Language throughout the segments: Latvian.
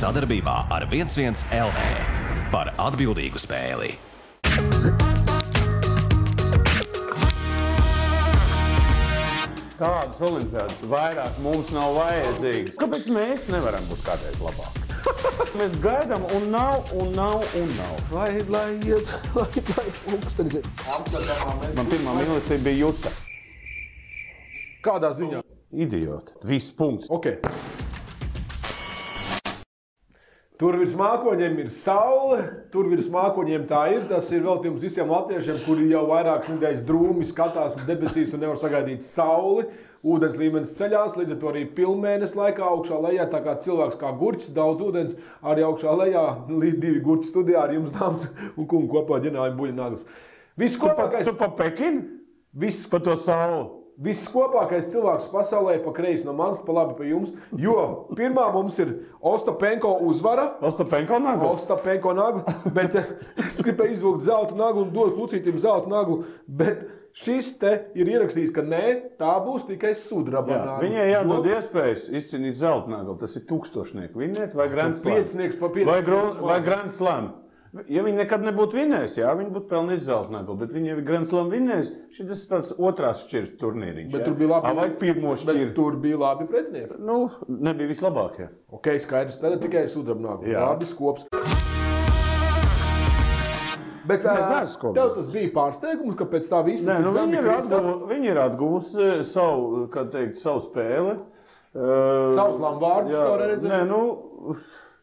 Sadarbībā ar 11 LV par atbildīgu spēli. Tādas olimpiādas vairāk mums nav vajadzīgas. Kāpēc mēs nevaram būt kādreiz labāki? Mēs gaidām un nav. Lai pulkstenis ir. Man pirmā mīlestība bija Juta. Kādā ziņā? Idioti. Viss punkts. Ok. Tur virs mākoņiem ir saule, tur virs mākoņiem tā ir. Tas ir veltījums visiem latviešiem, kuri jau vairākas nedēļas drūmi skatās debesīs un nevar sagaidīt sauli. Ūdens līmenis ceļās, līdz ar to arī pilnmēnesis laikā augšā lejā, tā kā cilvēks kā gurķis, daudz ūdens, arī augšā lejā, līdz 2 gurķi studijā ar jums, dāmas un kungi, kopā ģenerāļi buļļnaglas. Viss kopākais... Tu pa Pekinu? Viss pa to sauli? Viss kopākais cilvēks pasaulē pa kreisi no manis, pa labi pa jums, jo pirmā mums ir Ostapenko uzvara. Ostapenko nagla? Ostapenko nagla, bet es gribēju izvilkt zelta naglu un dot Lucītim zelta naglu, bet šis te ir ierakstījis, ka nē, tā būs tikai sudraba nagla. Viņai jādod iespējas izcīnīt zelta naglu, tas ir tūkstošnieku vinnēt vai Grand Slam? Piecinieks pa 5. Vai Grand Slam? Ja viņi nekad nebūtu vinnējis, jā, viņi būtu pelnījis zelta naglu, bet viņi jau ir Grand Slam vinnējis, šis ir tāds otrās šķirs turnīriņš. Bet tur bija labi, vai pirmo šķiru? Bet tur bija labi pretinieki. Nu, nebija vislabākie. Ok, skaidrs, tad tikai sudraba nagla. Labi skops. Bet tev tas bija pārsteigums, ka pēc tā visa... Nē, nu viņi ir atguvusi savu, kā teikt, savu spēli. Savus lambārdus, kā redzēt? Nē, nu...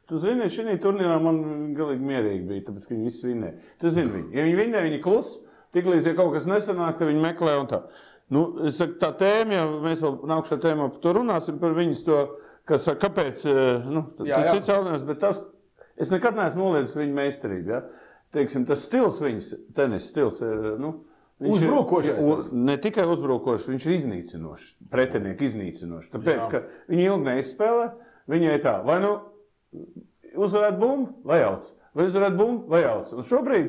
Tu zini, šī turnīrā man galīgi mierīgi bija, tāpēc, ka viņi visi vinnē. Tu zini viņi. Ja viņi vinnē, viņi klus, tiklīdz, ja kaut kas nesanāk, tad viņi meklē un tā. Nu, es saku, tā tēma, ja mēs vēl nākušā tēmā par to runāsim, par viņas to, kas saka, kāpēc, nu, tas cits jautājums, bet tas, es nekad neesmu noliedis viņu meistarību, ja? Teiksim, tas stils viņas, tenis stils, nu, uzbrukošais. Ne tikai uzbrukošs, viņš ir iznīcinošs, pretinieki iznīcinošs. Tāpēc, ka viņi ilgi neizspēlē, viņai tā, vai nu, uzvarēt bumbu vai jauc, vai uzvarēt bumbu vai jauc. Un šobrīd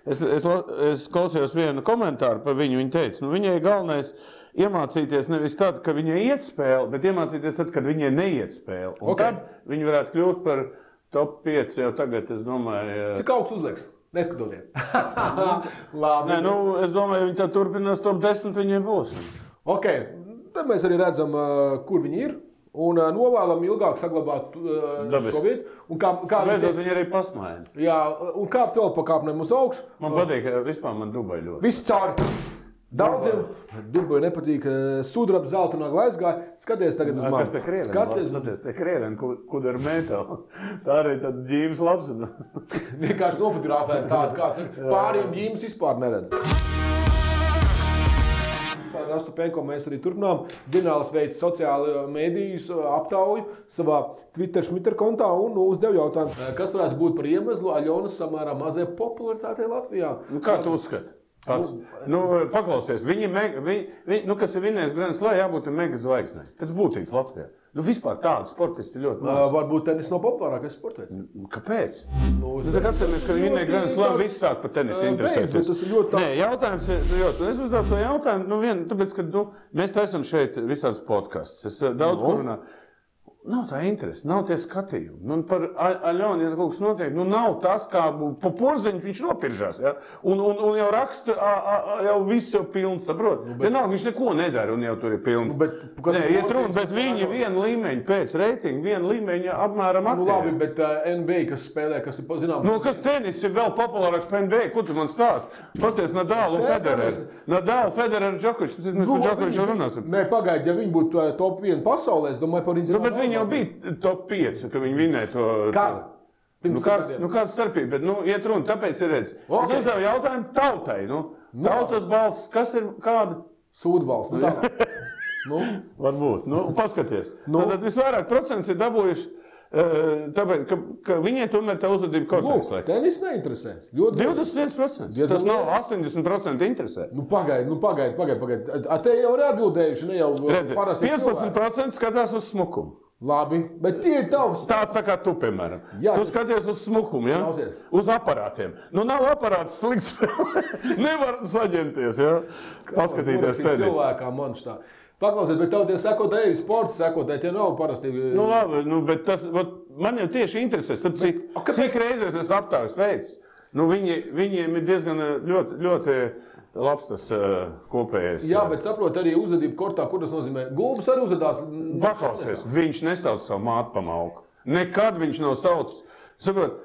es klausījos vienu komentāru par viņu, viņa teica, nu viņai galvenais iemācīties nevis tad, ka viņai iet spēle, bet iemācīties tad, kad viņai neiet spēle. Un tad viņi varētu kļūt par top 5 jau tagad, es domāju... Cik augsts uzlieks? Neskatoties. Labi. Nē, nu, es domāju, viņi tā turpinās top 10, viņiem būs. Ok, tad mēs arī redzam, kur viņi ir. Un novēlam ilgāk saglabāt šo vietu. Beidzot, viņi arī pasmaina. Jā, un kāpt vēl pa kāpnēm uz augšu. Man patīk, vispār man Dubai ļoti. Viss cauri. Daudziem Dubai nepatīk sudraba zelta nagla aizgāja. Skaties tagad uz mani. Kas te krieveni? Skaties, te krieveni, kur ar metālu. Tā arī tad ģīmes labs. Vienkārši nofotografēt tādu, kāds ir. Pāriem ģīmes vispār neredz. Ar Ostapenko mēs arī turpinām. Ģenerālis veids sociāli mēdījus aptauju savā Twitter kontā un uzdev jautājumu. Kas varētu būt par iemeslu Aļonas samērā mazai popularitātei Latvijā? Nu, kā tu uzskati? Paklausies, kas ir vinnējis Grand Slam, jābūt mega zvaigznei. Pēc būtības Latvijā. Nu, vispār tādu sportisti ļoti maz. Varbūt tenis nav populārākais sports. Kāpēc? Tad atceramies, ka viņi vinnēja Grand Slam, viss sāk par tenisi interesēties. Tas ir ļoti tāds. Nē, jautājums ir, es uzdevu šo jautājumu, tāpēc, ka mēs taisam šeit visādas podcasts. Es daudz kur runāju. Nav tā interese, nav tie skatījumi. Nu, par Aļonu, ja kaut kas notiek, nu nav tas, kā pa porziņu viņš nopiržās, ja? Un jau raksta, jau viss jau pilns, saprot? Vienalga, viņš neko nedara un jau tur ir pilns. Nē, iet runa, bet viņi vienu līmeņu pēc reitingu, vienu līmeņu apmēram aktīvi. Nu labi, bet NBA, kas spēlē, kas ir zināms... Nu, kas tenis ir vēl populārāks par NBA, ko tu man stāst? Pasties Nadal un Federer. Nadal, Federer, Džokovičs, mēs par Džokoviču runāsim. Nē, pagaidi, ja viņi būtu top 1 pasaulē, es domāju par viņu jau bija top 5, ka viņi vinnēja to... Kāda? Kāda starpība, bet iet runa, tāpēc ir redz. Es uzdevu jautājumu tautai, tautas balss, kas ir kāda? Sūdbalss, tā. Varbūt, paskaties. Tad visvairāk procents ir dabūjuši, tāpēc, ka viņiem tomēr tā uzvedība kortēs. Tenis neinteresē. 21%. Tas nav 80% interesē. Pagaidi. Te jau ir atbildējuši, ne jau parasti 15% skatās uz smukumu. Labi, bet tie ir tavs. Tāds tā kā tu, piemēram. Tu skaties uz smukumu, ja? Uz aparātiem. Nu, nav aparāts slikts. Nevar saņemties, ja? Paskatīties tenis. Cilvēkā man šitā. Paklausiet, bet tev tie sekotāji, sporta sekotāji, tie nav parasti. Nu, labi, bet tas, man jau tieši interesē, cik reizes es aptāvis veids. Nu, viņiem ir diezgan ļoti labs tas kopējais. Jā, bet saprot arī uzvedību kortā, kur tas nozīmē. Gulbis arī uzvedās. Paklausies, viņš nesauc savu mātu pa malku. Nekad viņš nav saucis. Saprot,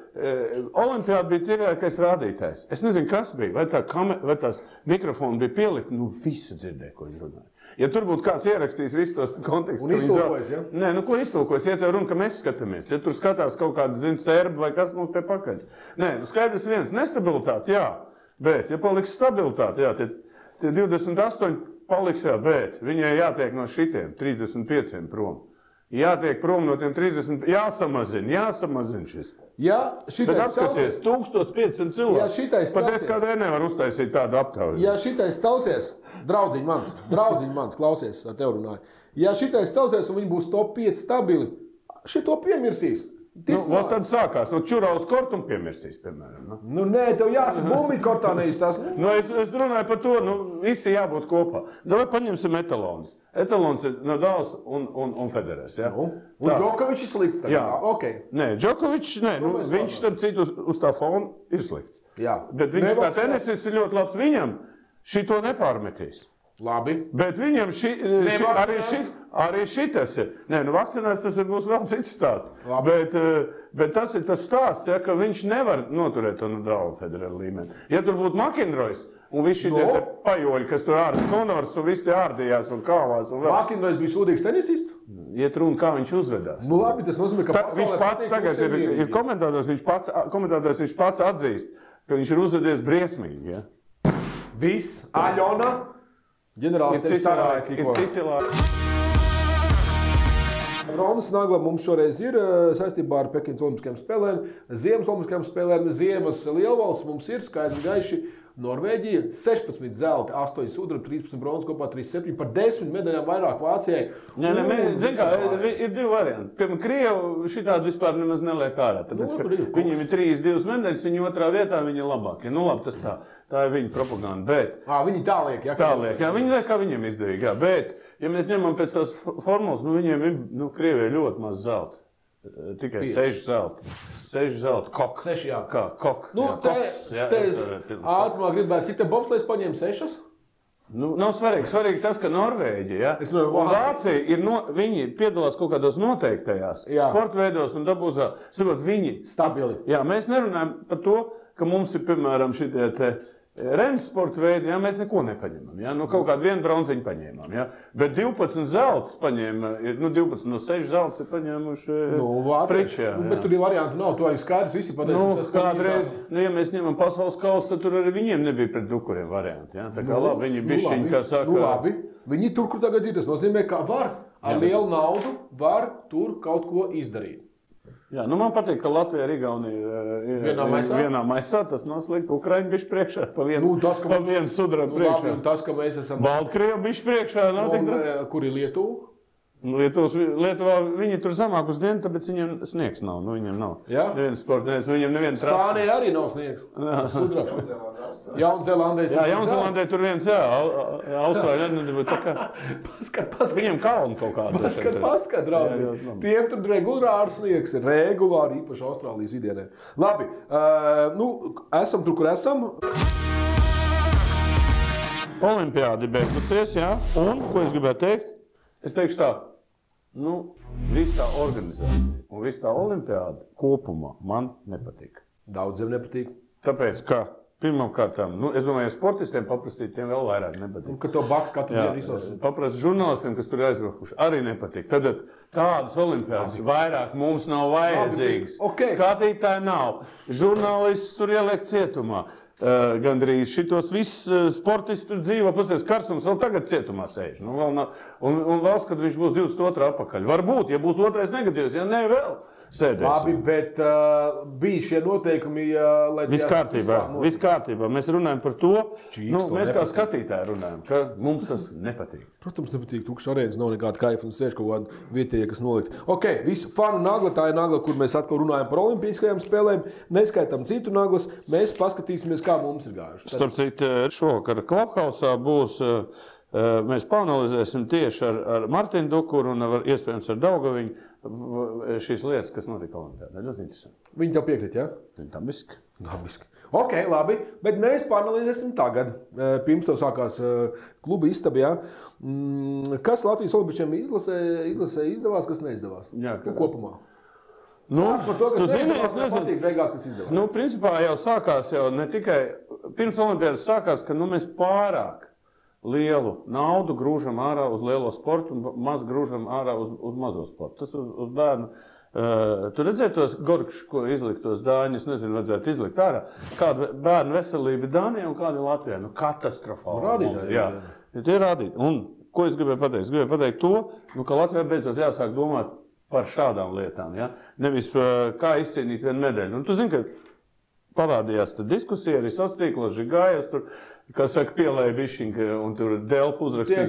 Olimpiāda bija tīrākais rādītājs. Es nezinu, kas bija. Vai tās mikrofoni bija pielikti? Nu, visu dzirdēja, ko viņi runāja. Ja tur būtu kāds ierakstījis visus tos kontekstus... Un iztulkojas, ja? Nē, nu ko iztulkojas? Ja tev runa, ka mēs skatāmies. Ja tur skatās kaut kāda, serbi vai kas mums pie pakaļ. Nē, nu skaidrs viens. Nestabilitāte, jā. Bet, ja paliks stabilitāte, jā, tie 28 paliks, jā, bet viņai jātiek no šitiem 35 prom. Jātiek prom no tiem 30, jāsamazina šis. Ja šitais celsies, 1500 cilvēku. Ja šitais celsies. Pat es kādreiz nevaru uztaisīt tādu aptauju. Ja šitais celsies, draudziņ mans, klausies, ar tev runāju. Ja šitais celsies un viņi būs top 5 stabili, šito piemirsīs. Tad sākās, čurā uz kortu un piemirsīs, piemēram. Nu, nē, tev jāsaka, bumbi kortā neizstās. Es runāju par to, visi jābūt kopā. Davai paņemsim etalonus. Etalons ir Nadals un Federers, ja? Un Džokovičs ir slikts tagad. Jā, ok. Nē, Džokovičs, viņš starp citu uz tā fona ir slikts. Jā. Bet viņš kā tenisists ir ļoti labs, viņam šito nepārmetīs. Labi. Bet viņam arī šitas ir. Nē, vakcinēts tas būs vēl cits stāsts. Bet tas ir tas stāsts, ja, ka viņš nevar noturēt to Nadalu Federeru līmeni. Ja tur būtu McInroys un visi šitie pajoļi, kas tur Konors un visi tie ārdījās un kāvās. McInroys bija sūdīgs tenisists? Iet runa, kā viņš uzvedās. Nu labi, tas nozīmē, ka viņš pats tagad ir komentētājs, viņš pats atzīst, ka viņš ir uzvedies briesmīgi. Ja? Viss, Aļona. Ģenerālis tevi sarāja tikko. Ronas Nagla mums šoreiz ir saistībā ar Pekinas Olimpiskajām spēlēm, Ziemas Olimpiskajām spēlēm, Ziemas lielvalsts mums ir skaidri gaiši. Norvēģija 16 zelta, 8 sudraba, 13 bronzas, kopā 37 par 10 medaļām vairāk Vācijai. Ir divi varianti. Piemēram, Krievu šitādi vispār nemaz neliek ārā. Viņiem ir 3-2 medaļas, viņi otrā vietā, viņi ir labākie. Nu labi, tas tā ir viņa propaganda, bet... Viņi tā liek, jā? Tā liek, jā, viņi liek, kā viņiem izdevīgi, jā. Bet, ja mēs ņemam pēc tās formulas, viņiem ir, Krievijai ļoti maz zelta. Tikai 6 zelta. 6 zelta. Kok. 6, jā. Kā? Kok. Te ātrumā gribētu, cik te bobslēs paņēma 6? Nav svarīgi. Svarīgi tas, ka Norvēģija, un Vācija viņi piedalās kaut kādos noteiktajās sporta veidos un dabūzā. Viņi stabili. Jā, mēs nerunājam par to, ka mums ir, piemēram, šitie te Renes sporta veidi, jā, mēs neko nepaņemam. Jā? Kaut kādu vienu bronziņu paņēmām. Jā? Bet 12 zeltas paņēma, 12 no 6 zeltas ir paņēmuši Friči. Bet tur ir varianti nav, tu arī skaidrs visi pateicis. Kādreiz, ja mēs ņemam pasaules kausu, tad tur arī viņiem nebija pret dukuriem varianti. Jā? Tā kā labi, viņi bišķiņi, kā saka... labi, viņi tur, kur tagad ir, tas nozīmē, ka var ar lielu naudu, var tur kaut ko izdarīt. Jā, man patīk, ka Latvija ar Igauniju ir vienā maisā. Tas nav slikti. Ukraiņi bišķi priekšā, pa vienu sudrabu priekšā. Labi, un tas, ka mēs esam... Baltkrievi bišķi priekšā. Kur ir Lietuva? Lietuvā viņi tur zamāk uz dienu, tāpēc viņiem sniegs nav. Viņiem nav. Neviens sportnieks, viņiem neviens trāps. Spānija arī nav sniegs. Sudrabs. Jaunzēlandē. Jā, Jaunzēlandē tur viens, Austrāļa nedabūja tā kā... Paskat. Viņiem kalni kaut kādā. Paskat, draugi. Tiem tur regulāri sniegs ir. Regulāri, īpaši Austrālijas vidienē. Labi, esam tur, kur esam. Olimpiādi beigusies, jā. Un, ko es gribētu teikt? Es teikšu tā, viss tā organizācija un viss tā olimpiāda kopumā man nepatīk. Daudziem nepatīk. Tāpēc, ka pirmām kārtām, es domāju, ja sportistiem paprastīt, tiem vēl vairāk nepatīk. Un ka to baks katru dienu visos. Paprast žurnālistiem, kas tur aizbrakuši, arī nepatīk. Tad tādas olimpiādas vairāk mums nav vajadzīgas. Skatītāji nav. Žurnālists tur ieliek cietumā. Gandrīz šitos visus sportisti tur dzīvo, pasies Karsums vēl tagad cietumā sēž. Un valsts, kad viņš būs 22 apakaļ. Varbūt, ja būs otrais negatīvs, ja ne vēl sēdēs. Labi, bet bija šie noteikumi, lai... Viss kārtībā. Mēs runājam par to, mēs kā skatītāji runājam, ka mums tas nepatīk. Protams, nepatīk. Tukšs arēnas nav nekāda kaifa un sēž kaut kāda vietēja, kas nolikt. Ok, visu fanu nagla, tā ir nagla, kur mēs atkal runājam par olimpiskajām spēlēm. Neskaitām citu naglas, mēs paskatīsimies, kā mums ir gājuši. Starp citu, šovakar Clubhouse būs Mēs paanalizēsim tieši ar Martinu Dukuru un iespējams ar Daugaviņu šīs lietas, kas notika Olimpiādā. Ļoti interesanti. Viņi tev piekrīt, jā? Dabiski. Ok, labi, bet mēs paanalizēsim tagad. Pirms tev sākās kluba istaba, jā. Kas Latvijas olimpiešiem izlasē izdevās, kas neizdevās? Jā, kopumā. Sāks par to, kas neizdevās, man patīk beigās, kas izdevās. Principā jau sākās ne tikai pirms Olimpiādas sākās, ka mēs pārāk lielu naudu grūžam ārā uz lielo sportu un maz grūžam ārā uz mazo sportu. Tas uz bērnu. Tu redzēji tos gorkšus, ko izlikt tos dāņus, nezinu, vajadzētu izlikt ārā. Kāda bērnu veselība Dānijā un kāda Latvijā? Katastrofāli. Rādītāji. Jā, tie rādītāji. Un ko es gribēju pateikt? Es gribēju pateikt to, ka Latvijā beidzot jāsāk domāt par šādām lietām. Ja? Nevis kā izcīnīt vienu medaļu. Un tu zini, ka parādījās diskusija arī sociālos tīklos, Žigājas, tur, kas saka, pielēja bišķiņu, un tur Delfu uzrakstīja,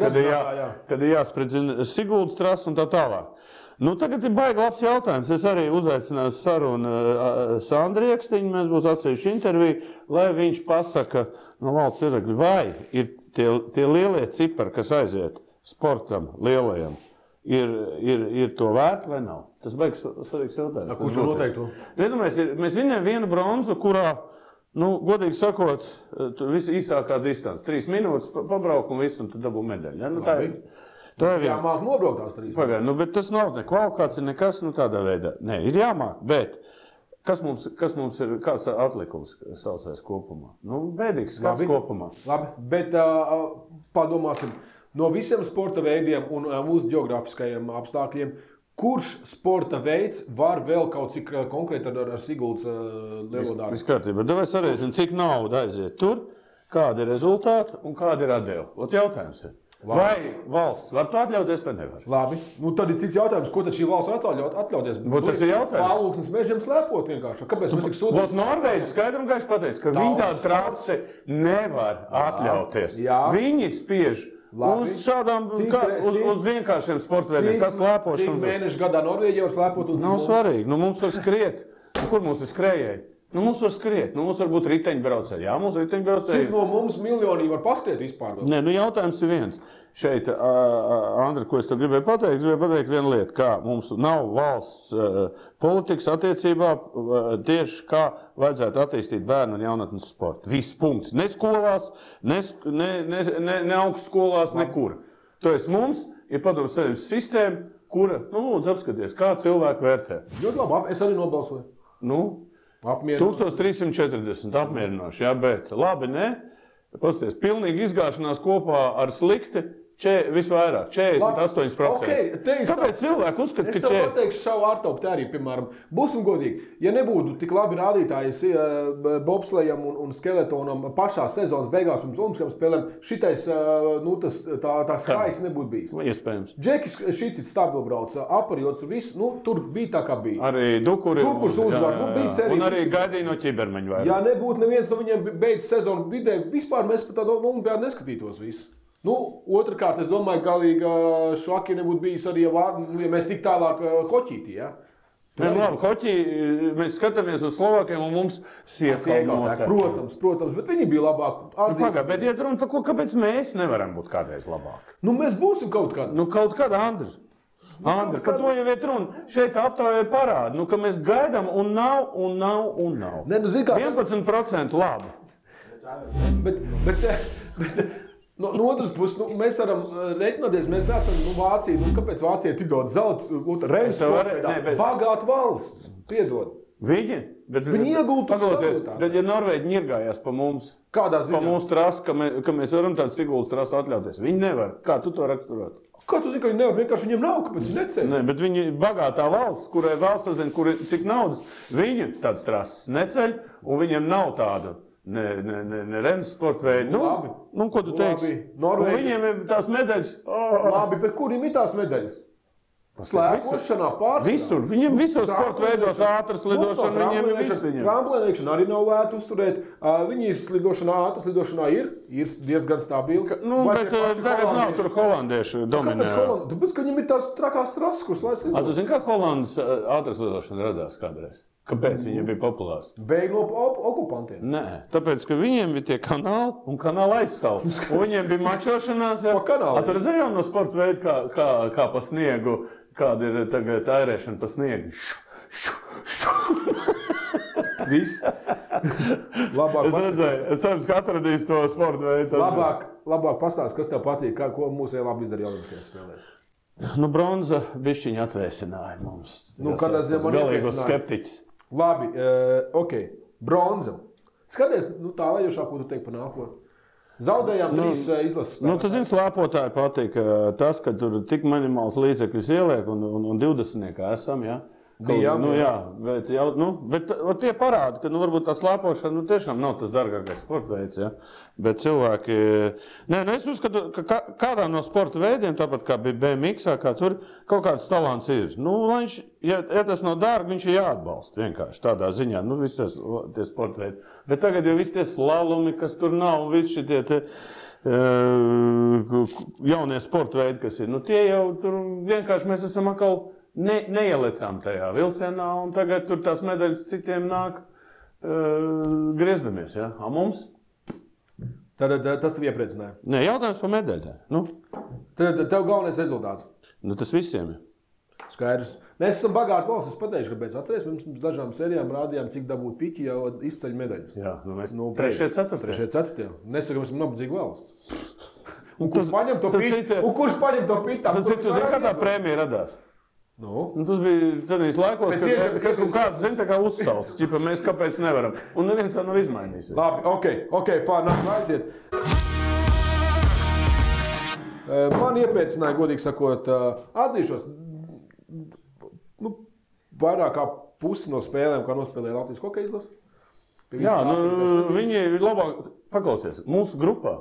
kad ir jāspridzina Siguldas trasa un tā tālāk. Tagad ir baigi labs jautājums. Es arī uzaicināju sarunu Sandru Iekstiņu, mēs būs atsevišķi interviju, lai viņš pasaka no valsts viedokļa, vai ir tie lielie cipari, kas aiziet sportam lielajam, ir to vērti vai nav? Tas baigs svarīgs jautājums. Kurš noteikti? Mēs viņam vienu bronzu, kurā, godīgi sakot, viss īsākā distance, 3 minūtes pabrauk un viss, un tu dabū medaļu. Ja? Tā ir jāmāk nobraukt tās 3 minūtes. Bet tas nav ne kvalifikācija, nekas tādā veidā. Nē, ir jāmāk, bet kas mums ir, kāds atlikums saucais kopumā? Bēdīgs skats kopumā. Labi, bet padomāsim. No visiem sporta veidiem un mūsu geogrāfiskajiem apstākļiem, kurš sporta veids var vēl kaut cik konkrēti ar Siguldas lielo darbu? Viss kārtībā. Davai sarēsim, cik nauda aiziet tur, kādi ir rezultāti un kādi ir atdeva. Jautājums ir. Labi. Vai valsts var to atļauties vai nevar? Labi. Tad ir cits jautājums, ko tad šī valsts var atļauties? Tas ir jautājums. Pārlūksnes mežiem slēpot vienkārši. Kāpēc mēs tik sūdām? Norvēģi skaidri un gaiši pateica, ka viņi tādu trasi nevar atļauties. Jā. Viņi spiež uz šādām, uz vienkāršiem sportveidiem, kas slēpošana. Cik mēnešu gadā Norvēģija var slēpot? Nav svarīgi. Mums var skriet. Kur mums ir skrējēji? Mums var skriet. Mums var būt riteņbraucēji. Jā, mums ir riteņbraucēji. Cik no mums miljoni var paskriet vispār? Nē, jautājums ir viens. Šeit, Andri, ko es tev gribēju pateikt vienu lietu, kā mums nav valsts politikas attiecībā tieši kā vajadzētu attīstīt bērnu un jaunatnes sportu. Viss punkts. Ne skolās, ne augstskolās, nekur. To es mums ir padomu savienības sistēma, kura, lūdzu apskaties, kā cilvēki vērtē. Ļoti labi, es arī nobalsoju. 1340 apmierinoši, jā, bet labi, ne? Pasties, pilnīgi izgāšanās kopā ar slikti, visvairāk, 48%. Kāpēc cilvēki uzskata, ka es tev pateikšu savu ārtaupu arī, piemēram, būsim godīgi, ja nebūtu tik labi rādītāji bobslejam un skeletonam pašā sezonas beigās pirms olimpiskajām spēlēm, šitais, tā skaisti nebūtu bijis. Iespējams. Džekis šicits stabilbrauca, aparjots, viss, tur bija tā kā bija. Arī Dukurs uzvar, bija cerības. Un arī gaidīja no ķibermeņa vairāk. Ja nebūtu neviens no viņiem beidz sezonu vidē, vispār mēs pat tādu olimpiādu neskatītos visu. Otrkārt, es domāju, galīgi švaki nebūtu bijis arī, ja mēs tik tālāk hoķītī, ja? Labi, hoķī, mēs skatāmies uz Slovākiem un mums siekā. Protams, bet viņi bija labāk. Bet iet runa par ko, kāpēc mēs nevaram būt kādreiz labāki? Mēs būsim kaut kādā. Kaut kādā, Andris. Andri, ka to jau iet runa. Šeit aptāvē parāda, ka mēs gaidām un nav. Ne, 11% labi. Bet no otras puses, mēs varam reiķināties, mēs neesam Vācija. Kāpēc Vācija ir tik daudz zelta? Renes sportā, bagāta valsts, piedod. Viņi iegultu savu. Ja Norvēģi ņirgājās pa mums, kādā ziņā? Pa mūsu trasu, ka mēs varam tādu Siguldas trasu atļauties. Viņi nevar. Kā tu to raksturot? Kā tu zini, ka viņi nevar? Vienkārši viņiem nav, kāpēc viņi neceļ? Nē, bet viņi bagātā valsts, kurai valsts sazina, cik naudas, viņi tādas trases neceļ, un viņiem nav tāda. Ne Renes sporta veidi. Labi. Ko tu teiksi? Viņiem ir tās medaļas. Labi, bet kuriem ir tās medaļas? Slēpošanā pārsvarā. Visur. Viņiem visos sporta veidos ātras lidošana, viņiem ir viss. Tramplēniekšana arī nav lēta uzturēt. Viņas ātras lidošanā ir diezgan stabili. Bet tagad nav tur holandieši dominē. Tāpēc, ka viņiem ir tās trakās trases, kuras laids lidot. Tu zini, kā Holandas ātras lidošana radās kādreiz? Kāpēc viņi bija populāri? Bēg no okupantiem. Nē, tāpēc, ka viņiem bija tie kanāli un kanāli aizsauli. Un viņiem bija mačošanās. Pa kanāliem. Tur redzējām no sporta veidu, kā pa sniegu, kāda ir tagad ērēšana pa sniegu. Viss. Labāk Es cerams, ka atradīs to sporta veidu. Labāk pastāst, kas tev patīk, ko mūsu labi izdarīja Olimpiskajās spēlēs. Bronza bišķiņa atvēsināja mums. Kādā ziņā man galīgos skeptiķis. Labi, ok. Bronza. Skaties, tālējošā, ko tu teiksi par nākotni. Zaudējām 3 izlases spēlētājus. Tu zini, slēpotāji patīk tas, ka tur tik minimāls līdzekļus ieliek un 20 esam, jā. Bet tie parāda, ka varbūt tā slēpošana tiešām nav tas dārgākais sporta veids. Ja? Bet cilvēki. Es uzskatu, ka kādā no sporta veidiem, tāpat kā bija BMX, kā tur kaut kāds talants ir. Viņš, ja tas nav dārgi, viņš ir jāatbalsta vienkārši tādā ziņā. Visi tie sporta veidi. Bet tagad jau visi tie slalumi, kas tur nav, visi šitie jaunie sporta veidi, kas ir. Tie jau tur vienkārši mēs esam atkal. Neielecām tajā vilcienā, un tagad tur tās medaļas citiem nāk griezdamies. Ja? A mums? Tad tas tev iepriecināja? Nē, jautājums par medaļām. Tad tev galvenais rezultāts? Tas visiem ir. Skaidrs. Mēs esam bagāti valsts. Es pateikšu, kāpēc atceries. Mēs dažām sērijām rādījām, cik dabūt piķi jau izceļ medaļas. Jā, mēs 3. 4. Nesaka, mēs esam nabadzīga valsts. Un kurš paņem to piķi? Cik tu zini, kā tā prēmija radās? Tas bija tādīs laikos, kad kāds zina, kā uzsauc. Ķipa, mēs kāpēc nevaram. Un neviens tā nav izmainījis. Labi, ok, fāna, aiziet. Man iepriecināja, godīgi sakot, atzīšos, vairāk kā pusi no spēlēm, kā nospēlēja Latvijas hokeja izlase. Jā, viņi ir labāk, paklausies, mūsu grupā.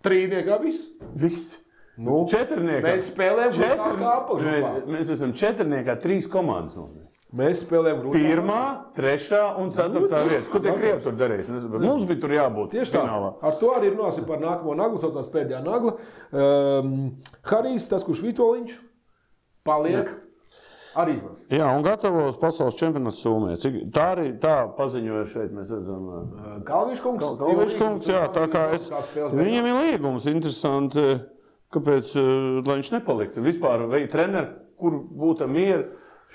3. Viss. 4. Mēs spēlējam kā apakšgrupā. Mēs esam 4. 3 komandas. Mēs spēlējam grupā. 1., 3. un 4. vieta. Ko tie krievi tur darīs? Mums bija tur jābūt. Tieši tā. Ar to arī runāsim par nākamo naglu, saucās pēdējā nagla. Harijs, tas, kurš Vitoļiņš, paliek arī izlases. Jā, un gatavos pasaules čempionāts Somijā. Tā paziņoja šeit, mēs redzam. Kalviņš kungs, jā, tā kā viņam ir līgums interesanti. Kāpēc, lai viņš nepaliktu? Vispār vai treneri, kur būtu mieri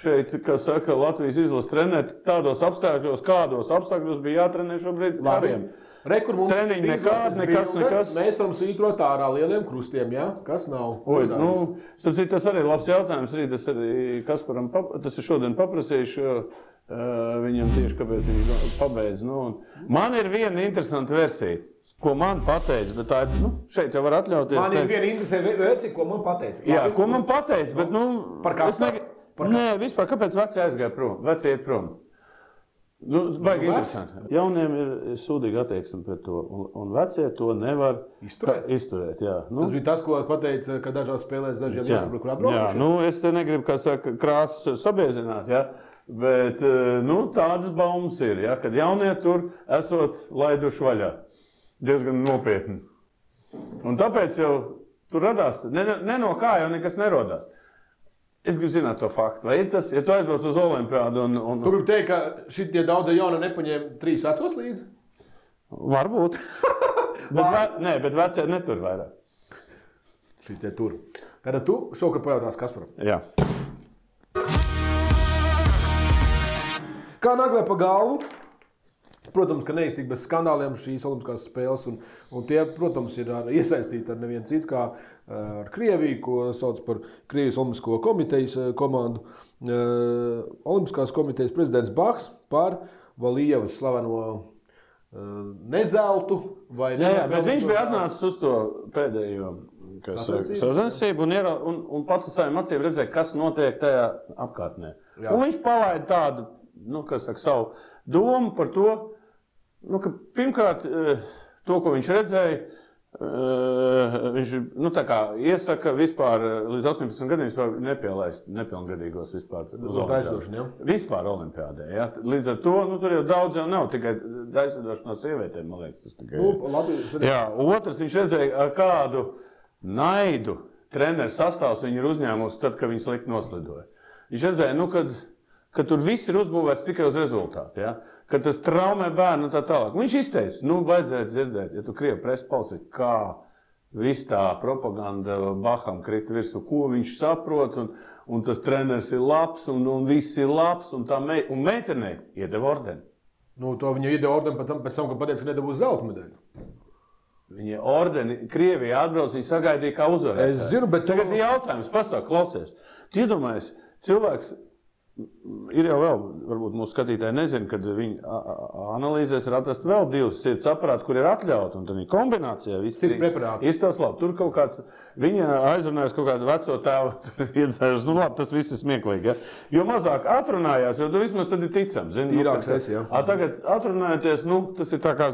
šeit, kas saka, Latvijas izlases treneri, tādos apstākļos, kādos apstākļos bija jātrenē šobrīd kariem. Treniņi nekas. Mēs varam svītrot ārā lieliem krustiem, ja? Kas nav? Tas arī ir labs jautājums. Tas arī Kasparam, tas ir šodien paprasījuši viņam tieši, kāpēc viņš pabeidz. Man ir viena interesanta versija. Ko man pateica, bet tā ir, šeit jau var atļauties. Man ir viena interesanta versija, ko man pateica. Jā, ko man pateica, bet, Par Kasparu? Nē, vispār, kāpēc vecie aizgāja prom? Vecie iet prom. Baigi interesanti. Jauniem ir sūdīga attieksme pret to, un vecie to nevar izturēt. Jā. Tas bija tas, ko pateica, ka dažās spēlēs dažiem jāsaprot, kur atbraukuši. Jā, es te negribu, kā saka, krāsas sabiezināt, jā. Bet, tādas baumas ir, jā, kad jaunie tur esot laiduši vaļā. Diezgan nopietni. Un tāpēc jau tur radās, ne no kā jau nekas nerodās. Es gribu zināt to faktu. Vai ir tas, ja tu aizbrauc uz Olimpiādu un... Tu gribi teikt, ka šitie daudzi jauni nepaņēma 3 vecos līdzi? Varbūt. bet vecie netur vairāk. Šitie tur. Tātad tu šokar pajautās Kasparam. Jā. Kā naglē pa galvu? Protams, ka neiztika bez skandāliem šīs olimpiskās spēles, un tie, protams, ir iesaistīti ar nevienu citu, kā ar Krieviju, ko sauc par Krievijas olimpisko komitejas komandu. Olimpiskās komitejas prezidents Baks par Valijevas slaveno nezeltu vai bet viņš bija atnācis uz to pēdējo sacensību un pats ar saviem acīm redzēja, kas notiek tajā apkārtnē. Jā. Un viņš palaida tādu, savu domu par to, ka pirmkārt, to, ko viņš redzēja, viņš iesaka vispār līdz 18 gadiem vispār nepielaist nepilngadīgos vispār uz Olimpiādu. Vispār Olimpiādē. Ja? Līdz ar to, tur jau daudz jau nav, tikai aizsardošana no sievietēm, man liekas. Tas tikai... Jā, otrs, viņš redzēja, ar kādu naidu treneru sastāvs viņi ir uzņēmusi tad, kad viņi slikti noslidoja. Viņš redzēja, kad ka tur viss ir uzbūvēts tikai uz rezultātu, ja? Ka tas traumē bērnu un tā tālāk. Viņš izteica, vajadzētu dzirdēt, ja tu Krievu presi palsi, kā viss tā propaganda Baham krita virsū, ko viņš saprot, un tas treneris ir labs, un viss ir labs, un meitenei iedeva ordeni. Nu, to viņa iedeva ordeni pēc tam, kad pateica, ka nedabūs zelta medaļu. Viņa ordeni Krievijā atbrauc, viņa sagaidīja kā uzvarētāju. Es zinu, bet tagad ir jautājums, pasaka, klausies. Tu iedomājies, cilvēks ir jau vēl, varbūt mūsu skatītāji nezina, kad viņi analīzēs ir atrast vēl divas sirds aparāti, kur ir atļauti, un tad viņa kombinācijā viss izstās labi. Tur kaut kāds, viņa aizrunājas kaut kādu veco tēvu, iedzēžas, labi, tas viss ir smieklīgi, ja? Jo mazāk atrunājās, jo tu vismaz tad ir ticams. Tīrāks esi, jā. Tagad atrunājoties, tas ir tā kā,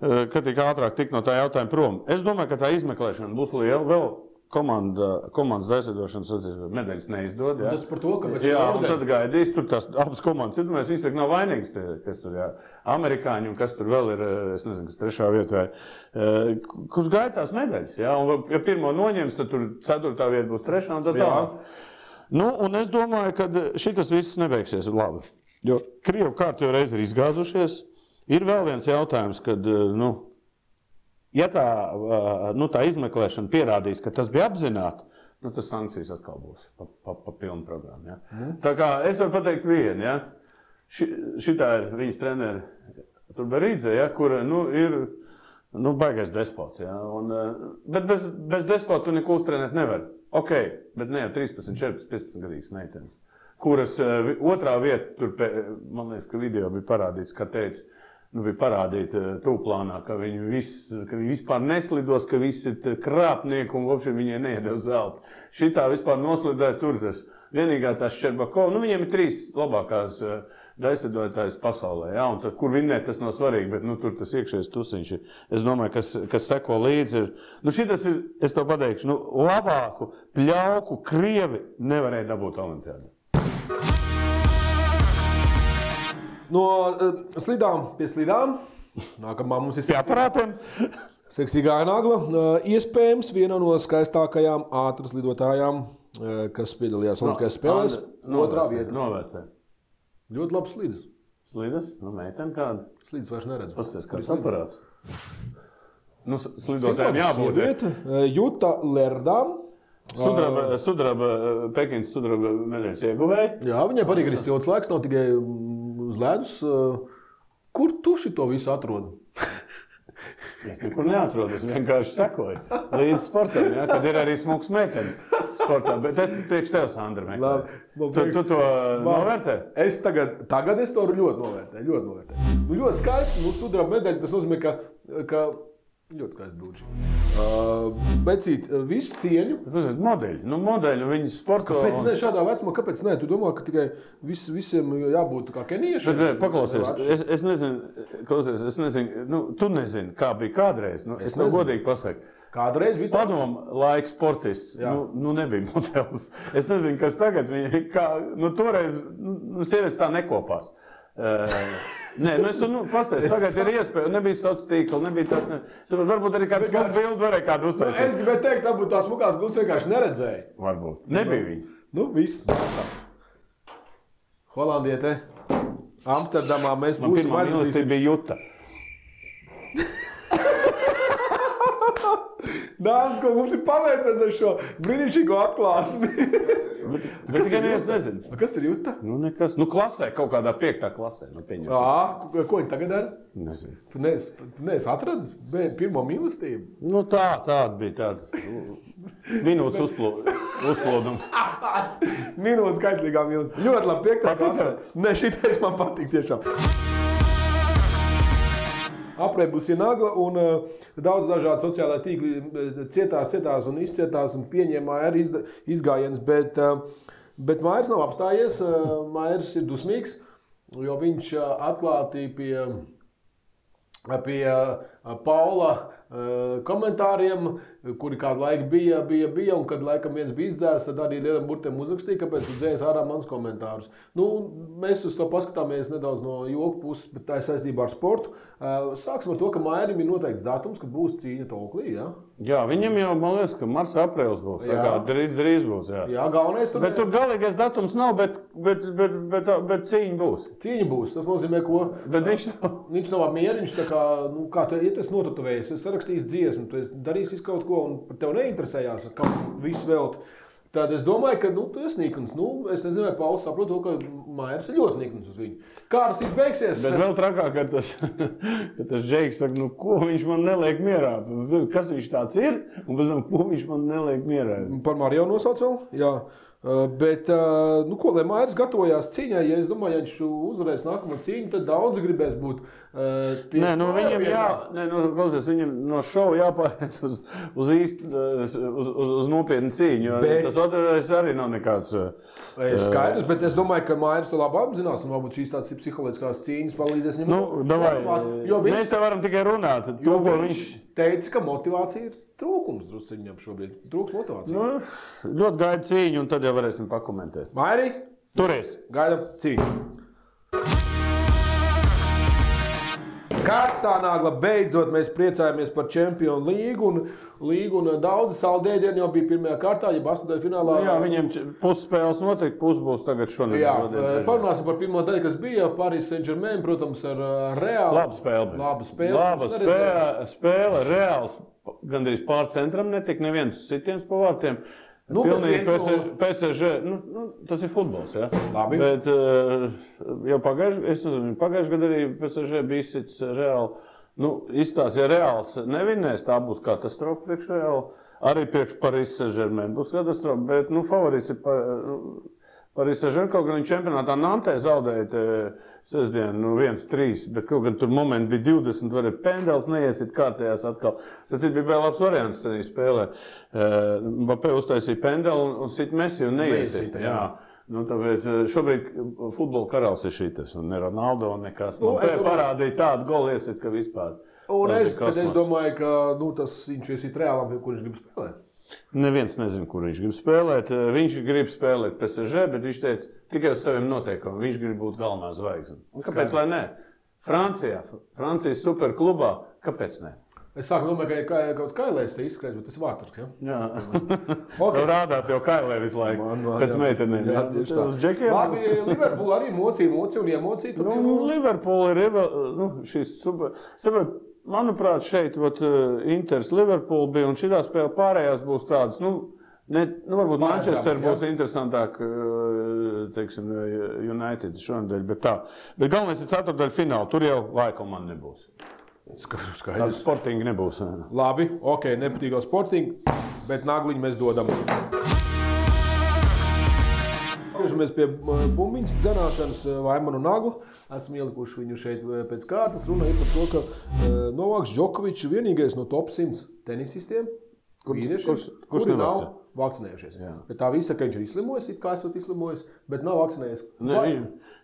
ka tik ātrāk tik no tā jautājuma prom. Es domāju, ka tā izmeklēšana būs liela, vēl komandas daļsadošanas medaļas neizdod. Ja? Tas par to, ka un tad gaidīs, tur tās abas komandas ir, mēs visi nav vainīgs, kas tur, jā, amerikāņi un kas tur vēl ir, es nezinu, kas trešā vietā, kurš gaida tās medaļas, ja? Un ja pirmo noņems, tad tur ceturtā vieta būs trešā un tad tā. Un es domāju, ka šitas viss nebeigsies labi, jo Krievu kārtējo reizi ir izgāzušies. Ir vēl viens jautājums, kad, ja tā izmeklēšana pierādīs, ka tas bija apzināti, tas sankcijas atkal būs pa pilnu programmu. Ja? Tā kā es varu pateikt vienu, ja? Šitā ir viņas treneri Turberīdze, ja? Kur ir baigais despots. Ja? Bet bez despota tu neko uztrenēt nevar. Ok, bet ne jau 13, 14, 15 gadīgas meitenes, kuras otrā vieta, tur, man liekas, ka video bija parādīts, kā teica, bija parādīta tūplānā, ka viņi vispār neslidos, ka visi ir krāpnieki un vopši viņai neiedeva zelta. Šitā vispār noslidēja tur tas. Vienīgā tās Ščerbakova, viņiem ir 3 labākās daļsadotājas pasaulē, ja? Un tad, kur vinnēt, tas nav svarīgi, bet tur tas iekšējais tusiņš ir. Es domāju, kas seko līdzi ir. Šitas ir, es to pateikšu, labāku pļauku Krievi nevarēja dabūt olimpiādā. No slidām pie slidām. Nākamā mums ir aparātiem. Seksīgā nagla. Iespējams, viena no skaistākajām ātras lidotājām, kas piedalījās Olimpiskajās spēlēs. Otrā vieta. Novērtē. Ļoti labs slidas. Slidas? Meitene kāda? Slidas vairs neredz. Pasties, kāds aparāts. Slidotājiem jābūt. Vieta. Juta Lerdām. Pekins sudraba medaļas ieguvēja. Jā, viņai patīk arī silts laiks, nav tikai uz ledus. Kur tu šito visu atrodi? Es nekur neatrodu, es vienkārši sekoju līdz sportam, ja, kad ir arī smuks meitenes sportā. Bet es priekš tev, Sandra, meklēju. Tu to novērtē? Es tagad es to ļoti novērtēju. Ļoti skaisti, sudraba medaļa, tas nozīmē, ka ļoti skaisti brūči. Becīt, visu cieņu. Modeļi, viņi sporto. Kāpēc ne šādā vecumā? Kāpēc ne? Tu domā, ka tikai visiem jābūt kā keniešiem? Bet paklausies, es nezinu, tu nezini, kā bija kādreiz. Es tev godīgi pasaku. Kādreiz bija tā? Padomu laika sportists, nebija modelis. Es nezinu, kas tagad, toreiz sievietes tā nekopās. Nē, es tur pastāstu, tagad ir iespēja, nebija sociālā tīkla, nebija tas, varbūt arī kāds smuku bildi varēja kādu uztaisīt. Es gribēju teikt, tā būtu tās smukās bildes vienkārši neredzēja. Varbūt. Nebija viņas. Viss. Holandiete, Amsterdamā mēs būsim pirmā mīlestība bija Juta. Dāmas, ko mums ir paveicies ar šo brīnišķīgo atklāsmi. Bet tikai neviens nezina. Kas ir Juta? Nekas. Klasē, kaut kādā 5. klasē. Ko viņi tagad dara? Nezinu. Tu neesi atradis pirmo mīlestību? Tāda bija tāda. Minūtes uzplūdums. Minūtes kaislīgā mīlestība. Ļoti labi, 5. klasē. Ne, šitais man patīk tiešām. Apreibusi nagla un daudz dažādi sociālai tīkli cietās un izcietās un pieņēmā arī izgājiens, bet Mairs nav apstājies, Mairs ir dusmīgs, jo viņš atklāti pie Paula komentāriem, kuri kādu laiku bija, un kad laikam viens bija izdzēs, tad arī lieliem burtiem uzrakstīja, kāpēc tu dzēs ārā mans komentārus. Mēs uz to paskatāmies nedaudz no joku puses, bet tā ir saistībā ar sportu. Sāksim ar to, ka Mairim ir noteikts datums, kad būs cīņa Toklī, ja? Jā, viņam jau, man liekas, ka marts, aprēlis būs. Drīz būs, jā. Jā, galvenais tur. Bet tur galīgais datums nav, bet cīņa būs. Cīņa būs, tas nozīmē, ko? Bet viņš nav apmierināts, tā kā, kā tu, ja tu esi notatuvējies, tu esi sarakstījis dziesmu, tu esi darījis kaut ko un par tev neinteresējās, kam visu velt. Tad es domāju, ka tu esi nikns. Es nezinu, vai Pauls saprot to, ka Maiers ir ļoti nikns uz viņu. Kā tas izbeigsies? Bet vēl trakāk, ka tas Džeiks saka, ko viņš man neliek mierā. Kas viņš tāds ir? Un pēc tam, ko viņš man neliek mierā. Par Mariju nosauc vēl? Jā. Bet, ko, lai Maiers gatavojās cīņai, ja es domāju, ja viņš uzvarēs nākamo cīņu, tad daudz gribēs būt Nē, viņam no šova jāpāriet uz nopietnu cīņu, tas otrais arī nav nekāds. Skaidrs, bet es domāju, ka Maiers to labi apzinās, un varbūt šīs tādas psiholoģiskās cīņas palīdzēs viņam. Mēs te varam tikai runāt. Viņš teica, ka motivācija ir trūkums drusciņam šobrīd. Trūks motivācija. Ļoti gaida cīņu, un tad jau varēsim pakomentēt. Mairi, turies! Gaidam cīņu. Kārstā nāgla beidzot mēs priecājamies par Čempionu līgu, un daudzi saldēdieni jau bija pirmajā kārtā, ja astotajā finālā. Jā, viņiem pusspēles noteikti, pus būs tagad šonedēļ. Jā, parunāsim par pirmo daļu, kas bija Paris Saint-Germain, protams, ar Reālu. Laba spēle, Reāls gandrīz pār centram netika, neviens sitiens pa vārtiem. Pilnīgi PSG, tas ir futbols, jā. Labi. Bet jau pagājuši gadu arī PSG bija izsits Reāli. Izstās, ja Reāls nevinēs, tā būs katastrofa priekš Reāli. Arī priekš Paris Saint-Germain būs katastrofa, bet favorīts ir Paris Saint-Germain, kaut gan viņš čempionātā Nantē zaudēja sestdien 1-3, bet kaut gan tur momenti bija 20, varēja pendels neiesit kārtējās atkal. Tas bija labs variants tādā spēlē. Mbappé uztaisīja pendeli un sit Messi un neiesit. Tāpēc šobrīd futbola karalis ir šitas, un ne Ronaldo, un nekas. Parādīja tādu golu iesit, ka vispār. Bet es domāju, ka viņš iesit Reālam, kur viņš grib spēlēt. Neviens nezina, kur viņš grib spēlēt. Viņš grib spēlēt PSG, bet viņš teica tikai uz saviem noteikumiem. Viņš grib būt galvenā zvaigzne. Kāpēc lai ne? Francijas superklubā, kāpēc ne? Es sāku domāt, ka kaut Kailēs te izskrēs, bet tas vātars, ja? Jā. Okay. Rādās jau Kailē visu laiku. Pēc meitenēm. Jā, tieši tā. Labi, Liverpool arī mocija un emociju. Liverpool ir šis super... Manuprāt, šeit Inters Liverpool bija, un šitā spēle pārējās būs tādas, varbūt Manchester būs interesantāk, teiksim, United šonadēļ, bet tā. Bet galvenais ir ceturtdaļa fināla, tur jau Laikomanda nebūs. Skaidrs. Sportingi nebūs. Labi, ok, nepatīkā sportingi, bet nagliņu mēs dodam. Atgriežamies pie bumbiņas dzenāšanas Vaimanu Naglu. Esam ielikuši viņu šeit pēc kārtas. Runa ir par to, ka Novaks Džokovičs ir vienīgais no top 100 tenisistiem, kuri nav vakcinējušies. Jā. Bet tā visa, ka viņš ir izslimojis, it kā esot izslimojis, bet nav vakcinējies.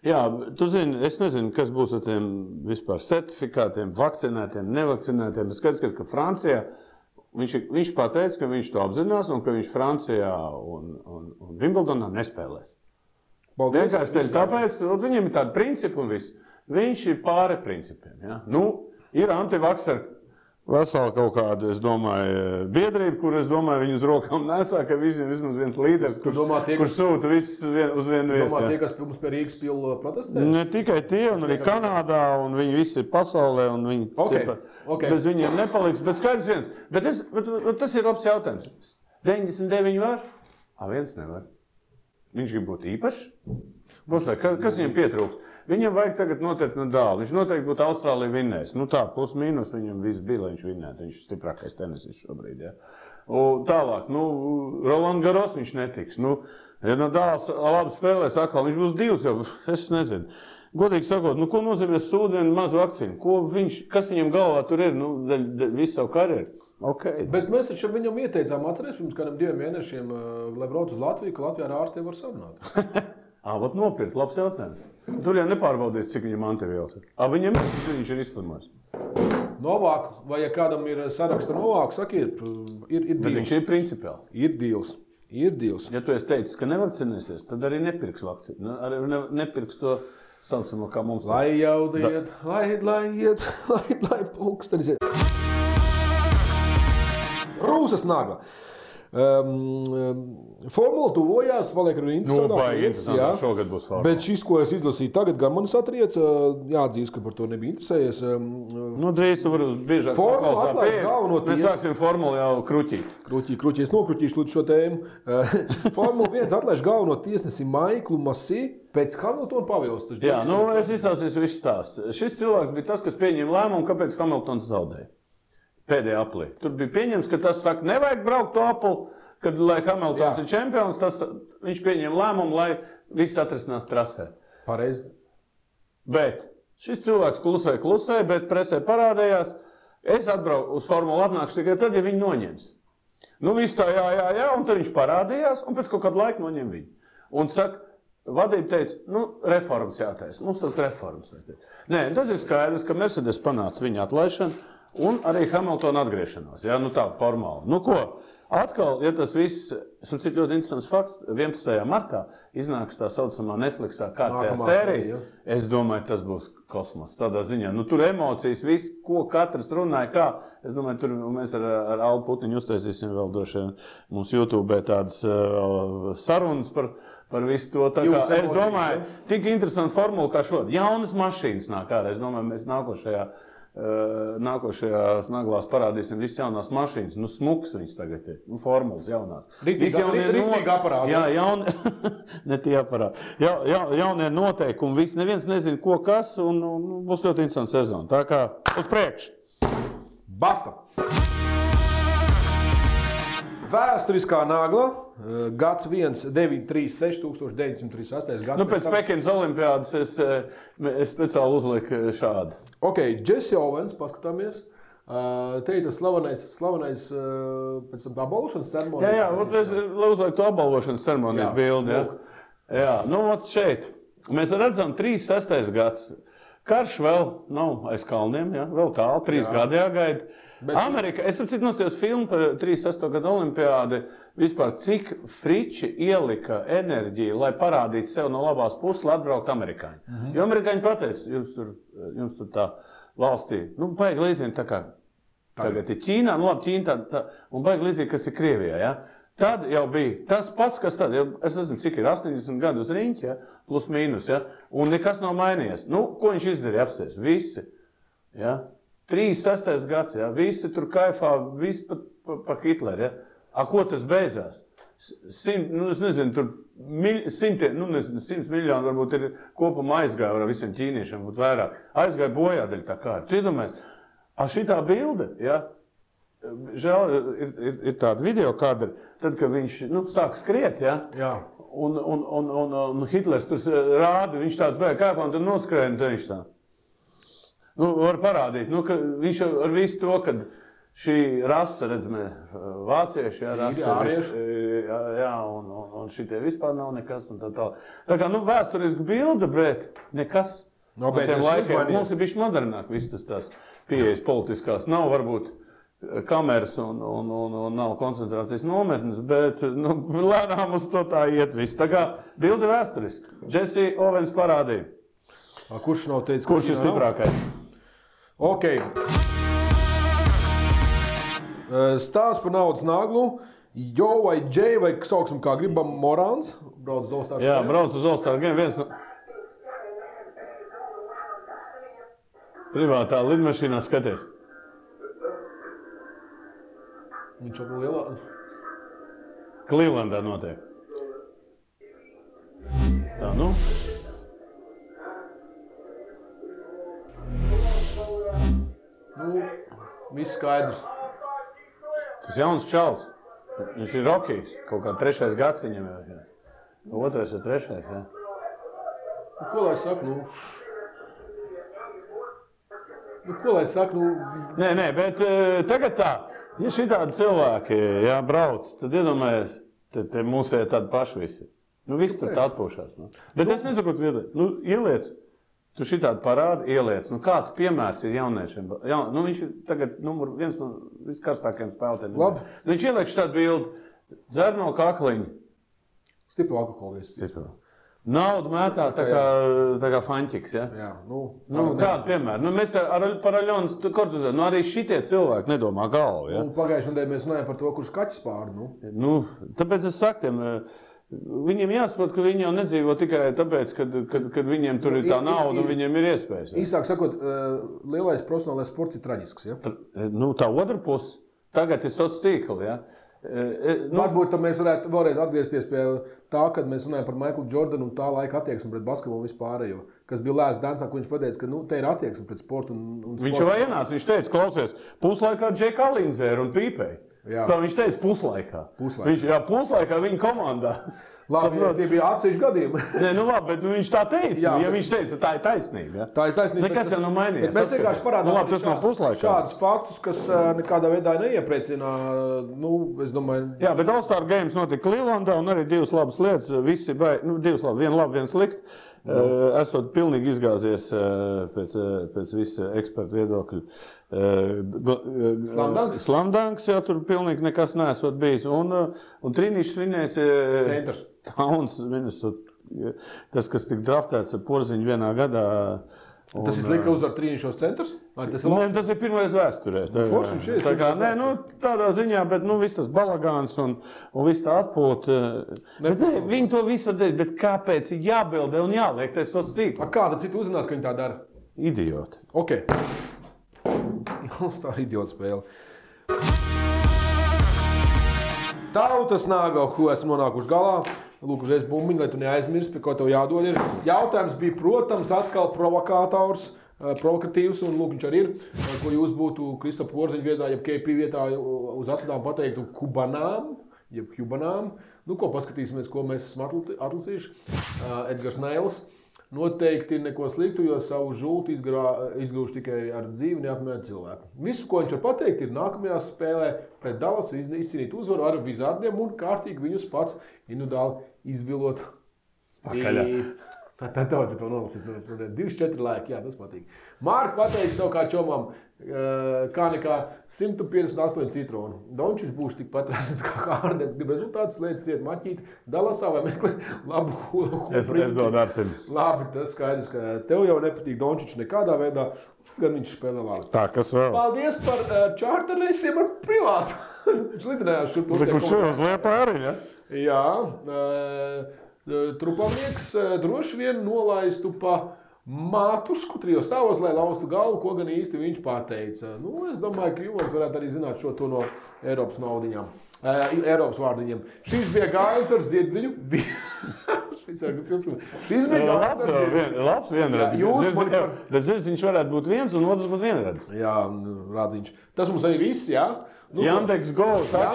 Jā, tu zini, es nezinu, kas būs ar tiem vispār certifikātiem, vakcinētiem, nevakcinētiem. Es skaidrs, ka Francijā viņš pateica, ka viņš to apzinās un ka viņš Francijā un Wimbledonā nespēlēs. Vienkārši teļ tāpēc, viņam ir tādi principi un viss. Viņš ir pāri principiem. Ja? Ir antivakseri vesela kaut kāda, es domāju, biedrība, kur es domāju, viņu uz rokām nesā, ka viņam vismaz viens līderis, kurš sūta visus uz vienu vietu. Domā tie, kas mums pie Rīgas pila protestē? Ne tikai tie, un arī Kanādā, un viņi visi ir pasaulē, un viņi bez viņiem nepaliks. Bet skaidrs viens, bet tas ir labs jautājums. 99 var? Viens nevar. Viņš grib būt īpašs? Kas viņam pietrūks? Viņam vajag tagad noteikti Nadālu. Viņš noteikti būtu Austrālija vinnējis. Tā, plus mīnus viņam viss bija, lai viņš vinnētu. Viņš ir stiprākais tenisists šobrīd. Ja. Tālāk, Roland Garros viņš netiks. Ja Nadāls labi spēlēs atkal, viņš būs divs jau, es nezinu. Godīgi sakot, ko nozīmē sūdienu mazu vakcīnu? Kas viņam galvā tur ir? Visu savu karjeru. Okay. Bet mēs taču viņam ieteicām atcerēties pirms kādiem 2 mēnešiem, lai brauc uz Latviju, ka Latvijā ar ārstiem var sarunāt. Nopirkt, labs jautājums. Tur jau nepārbaudīs, cik viņam antivielas ir. Viņam viņš ir izslimojis. Novāk, vai ja kādam ir saraksta Novāk, sakiet, ir dīls. Bet viņš ir principiāli. Ir dīls. Ja tu esi teicis, ka nevakcinēsies, tad arī nepirks vakcīnu. Arī nepirks to saucamo, kā mums. Lai jaudiet, lai pulkstenis iet. Rūsas nagla. Formula tuvojās, paliek arī interesantāka. Šogad būs formula. Bet šis, ko es izlasīju tagad, gan manis atrieca, jāatzīst, ka par to nebija interesējies. Drīz tu vari biežāk formula atlaiž galveno tiesu. Mēs sāksim formulu jau kruķīt. Kruķī, es nokruķīšu līdz šo tēmu. Formula 1 atlaiž galveno tiesnesi Maiklu Masī pēc Hamiltona pavilstu. Jā, es izstāstīšu visu stāstu. Šis cilvēks bija tas, kas pieņēma lēmumu, kāpēc Hamiltons zaudēja. Pēdējā aplī. Tur bija pieņems, ka tas saka, nevajag braukt to apli, kad, lai Hamiltons ir čempions, viņš pieņem lēmumu, lai viss atrisinās trasē. Pareizi. Bet šis cilvēks klusē, bet presē parādījās, es atbraucu uz formulu atnākšu tikai tad, ja viņi noņems. Viss tā jā, un tad viņš parādījās, un pēc kaut kādu laiku noņem viņu. Un saka, vadība teica, reformas jātaisa, mums tas reformas. Nē, tas ir skaidrs, ka Mercedes panāca viņa atlaišanu, un arī Hamiltona atgriešanos, tā formāli. Ko? Atkal, ja tas viss, cik ļoti interesants fakts, 11. martā iznāks tā saucamā Netflixā kārtējā sērija. Es domāju, tas būs kosmos. Tādā ziņā, tur emocijas, viss, ko katrs runāja, kā. Es domāju, tur mēs ar Allu Putniņu uztaisīsim vēl droši vien mums YouTube tādas sarunas par visu to. Es domāju, tik interesanti formula kā šodien. Jaunas mašīnas nāk ārā. Es domāju, mēs nākošajās naglās parādīsim visas jaunās mašīnas. Smuks viņas tagad ir. Formulas jaunās. Rītīgi aparāti. Jā, ne tie aparāti. Jaunie noteikumi, viss. Neviens nezina, ko kas, un būs ļoti interesanta sezona. Tā kā uz priekšu. Basta! Vēsturiskā nagla, gads 1936, 1938. gads. Pēc Pekinas olimpiādas es speciāli uzliku šādu. Ok, Jesse Owens, paskatāmies. Te ir tas slavenais pēc tam apbalvošanas ceremonijas. Jā, es uzlieku to apbalvošanas ceremonijas bildi. Jā, šeit. Mēs redzam 36. gads. Karš vēl nav aiz kalniem, vēl tālu, 3 gadi jāgaida. Amerika, es nostājos filmu par 36. gadu olimpiādi, vispār cik friči ielika enerģiju, lai parādītu sev no labās puses, lai atbraukt amerikāņi. Jo amerikāņi pateica, jums tur tā valstī, baigi līdzīgi tā kā tagad ir Ķīnā, labi Ķīna tā, un baigi līdzīgi, kas ir Krievijā, ja? Tad jau bija tas pats, kas tad, es nezinu, cik ir 80 gadu uz riņķi, plus mīnus, un nekas nav mainījies. Ko viņš izdarīja apsties? Visi, 36. gads, visi tur kaifā, visi pa Hitleri, ko tas beidzās? Es nezinu, tur 100 miljoni varbūt ir kopumā aizgāja ar visiem ķīniešiem, būtu vairāk. Aizgāja bojā daļa tā kā. Tu iedomājies, šitā bilde, žēl, ir tāda video kadra, tad, kad viņš sāk skriet, un Hitlers tur rāda, viņš tāds bēg kāpā, un tad noskrēja, un tad viņš tā. Var parādīt, ka viņš ar visu to, kad šī rasa, redzamē, vācieši, un šitie vispār nav nekas, un tā tā. Tā kā, vēsturiski bilde, bet nekas. No tiem laikiem mums ir bišķi modernāk, viss tās pieejas politiskās. Nav varbūt kameras un nav koncentrācijas nometnes, bet lēnām uz to tā iet viss. Tā kā bilde vēsturiski. Jesse Owens parādīja. Kurš nav teicis, kurš ir stiprākais? Ok. Stāsts par naudas naglu. Jo vai Džei, vai sauksim kā gribam, Morāns. Brauc uz All-Star Game. Jā, brauc uz All-Star Game. Viens no privātā lidmašīnā skaties. Viņš jau lielā. Clevelandā notiek. Tā, viss skaidrs. Tas jauns čals. Viņš ir Rokijs. Kaut kā 3. gads viņam jau. 2. vai 3. jā. Ko lai saku, ko lai saku, Nē, bet tagad tā. Ja šitādi cilvēki brauc, tad iedomājies, te mūsē tādi paši visi. Viss tur tā atpūšās. Bet es nesaku, ieliec. Tu šitādi parādi, ieliec. Kāds piemērs ir jauniešiem? Viņš ir tagad viens no viskarstākajiem spēlētājiem. Labi. Viņš ieliek šitādu bildi. Dzer no kakliņa. Stipru alkoholu vispār. Naudu mētā tā kā faņķiks, ja? Jā, kādu piemēru? Mēs par Aļonas Kortuzē, arī šitie cilvēki nedomā galvu, ja? Pagājušajā nedēļā mēs runājam par to, kurš kaķis pāri, Tāpēc es saku tiem, viņiem jāsaprot, ka viņi jau nedzīvo tikai tāpēc, kad viņiem tur ir tā nauda un viņiem ir iespējas. Ja? Īsāk sakot, lielais profesionālais sports ir traģisks, ja? Tā otra puse, tagad ir sociālā tīkli, ja? Varbūt mēs varētu vēlreiz atgriezties pie tā, kad mēs runājam par Maiklu Jordanu un tā laika attieksmi pret basketbolu vispārējo. Kas bija Lēs Dansā, ko viņš pateica, ka te ir attieksme pret sportu un sportu. Viņš jau ienāca, viņš teica, klausies, puslaikā Džeka Alinzēra un Pīpēja. Tā viņš teica puslaikā. Puslaikā viņa komandā. Labi, tie bija atsevišķi gadījumi. Labi, bet viņš tā teica. Ja viņš teica, tā ir taisnība. Ja? Tā ir taisnība. Nekas jau nav mainījies. Mēs vienkārši parādām šādus faktus, kas nekādā veidā neiepriecina. Es domāju... Jā, bet All-Star Games notika Clevelandā un arī divas labas lietas. Visi divas labas, viena laba, viena slikta. Esot pilnīgi izgāzies pēc visa ekspertu viedokļu. Slamdanks jau tur pilnīgi nekas neesot bijis. Un Trīnišs svinēs centrs. Tauns, tas, kas tika draftēts ar Porziņu vienā gadā. Tas ir slikti uzvar Trīnišos centrs? Tas ir pirmais vēsturē. Tādā ziņā, bet viss tas balagāns un viss tā atpūta. Viņi to visu var darīt, bet kāpēc ir jābildē un jāliek tas sociāls tīkls? Kāda cita uzzinās, ka viņi tā dara? Idioti. Ok. Tā ir idiota spēle. Tautas nāga, ko esmu nonākuši galā. Lūk, uzreiz bumbiņu, lai tu neaizmirsti, pie ko tev jādod ir. Jautājums bija, protams, atkal provokātors, provokatīvs, un lūk, viņš arī ir. Ko jūs būtu Kristofa Porziņa vietā, jeb KP vietā uz atladām pateiktu kubanām, jeb kubanām. Ko paskatīsimies, ko mēs esam atlasījuši. Edgars Neils. Noteikti neko sliktu, jo savu žultu izgūšu tikai ar dzīvi neapmierinātu cilvēku. Visu, ko viņš var pateikt, ir nākamajā spēlē pret Dallasu izcīnīt uzvaru ar Wizardiem un kārtīgi viņus pats individuāli izvilot. Pakaļā. Tā daudz to nolasīt. 2-4 laiki, jā, tas patīk. Mārka pateiks savu kā čomām, kā nekā 158 citronu. Dončiņš būs tikpat rāsīt kā Hārdens. Grib rezultātus lietas iet maķīt Dallasā vai meklē labu huprīti. Es dodu Artim. Labi, tas skaidrs, ka tev jau nepatīk Dončiņš nekādā veidā, gan viņš spēlē labi. Tā, kas vēl? Paldies par čārterreisiem ar privātu. Viņš lidinājās šur. Kurš jau uz Liepā arī, ja? Jā. Trupamnieks droši vien nolaistu pa Mātusku trijos stāvos, lai laustu galvu, ko gan īsti viņš pateica. Es domāju, ka Ivons varētu arī zināt šo to no Eiropas naudiņām, Eiropas vārdiņiem. Šis bija gājiens ar zirdziņu. Šis bija gājiens ar zirdziņu. Labs vienredzis. Bet zirdziņš varētu būt viens un otrs būt vienredzis. Jā, rādziņš. Tas mums arī viss, jā? Jandeks Go, tā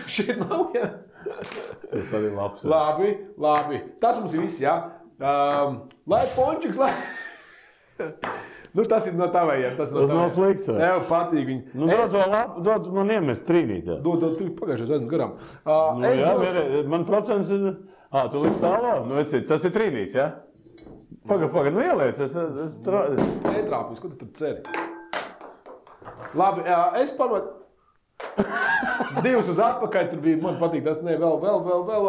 šeit nav, jā. Tas arī labs. Labi. Tas mums ir viss, jā. Lai pončiks, lai... tas ir no tavējiem. Tas nav slikts. Tev patīk viņi. Dod man iemest trīnīt. Dod, tu pagājušais aizmu garām. Man procents ir... Tu liks tālāk? Tas ir trīnīts, jā? Pagad, ieliec. Netrāpīs, ko tu tur ceri? Labi, es panot... 2 uz atpakaļ, tur bija, man patīk, tas ne, vēl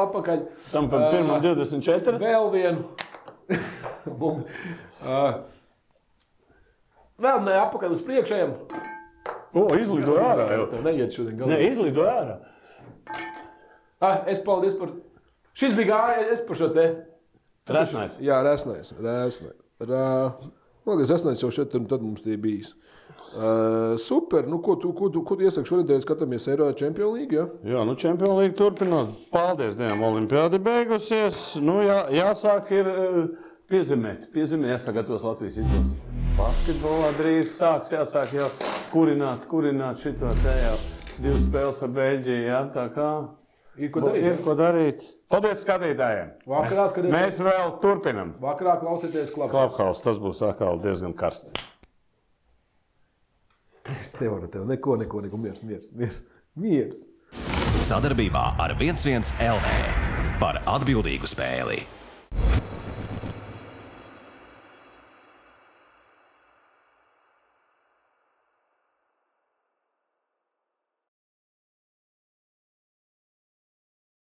atpakaļ. Tam par pirmā 24? Vēl vienu. Vēl ne atpakaļ uz priekšējiem. Izlidoja ārā jau. Tev neiet šodien galā. Ne, izlidoja ārā. Es paldies par... Šis bija gājies par šo te. Resnais. Jā, resnais. Resnais jau šeit, un tad mums tie bijis. Super, ko tu iesaki šonedēļ skatāmies Eiro Champions League, ja? Jā, Champions League turpinās. Paldies Dievam, olimpiādi beigusies. Jāsāk ir piezemēt, jāsagatavos Latvijas izlases. Basketbolā drīz jāsāk jau kurināt šito te jau 2 spēles ar Beļģiju, jā, tā kā ir ko darīt. Paldies skatītājiem. Mēs vēl turpinam. Vakarā klausieties Clubhouse, tas būs atkal diezgan karsts. Es nevaru tev neko, miers. Sadarbībā ar 11 LV par atbildīgu spēli.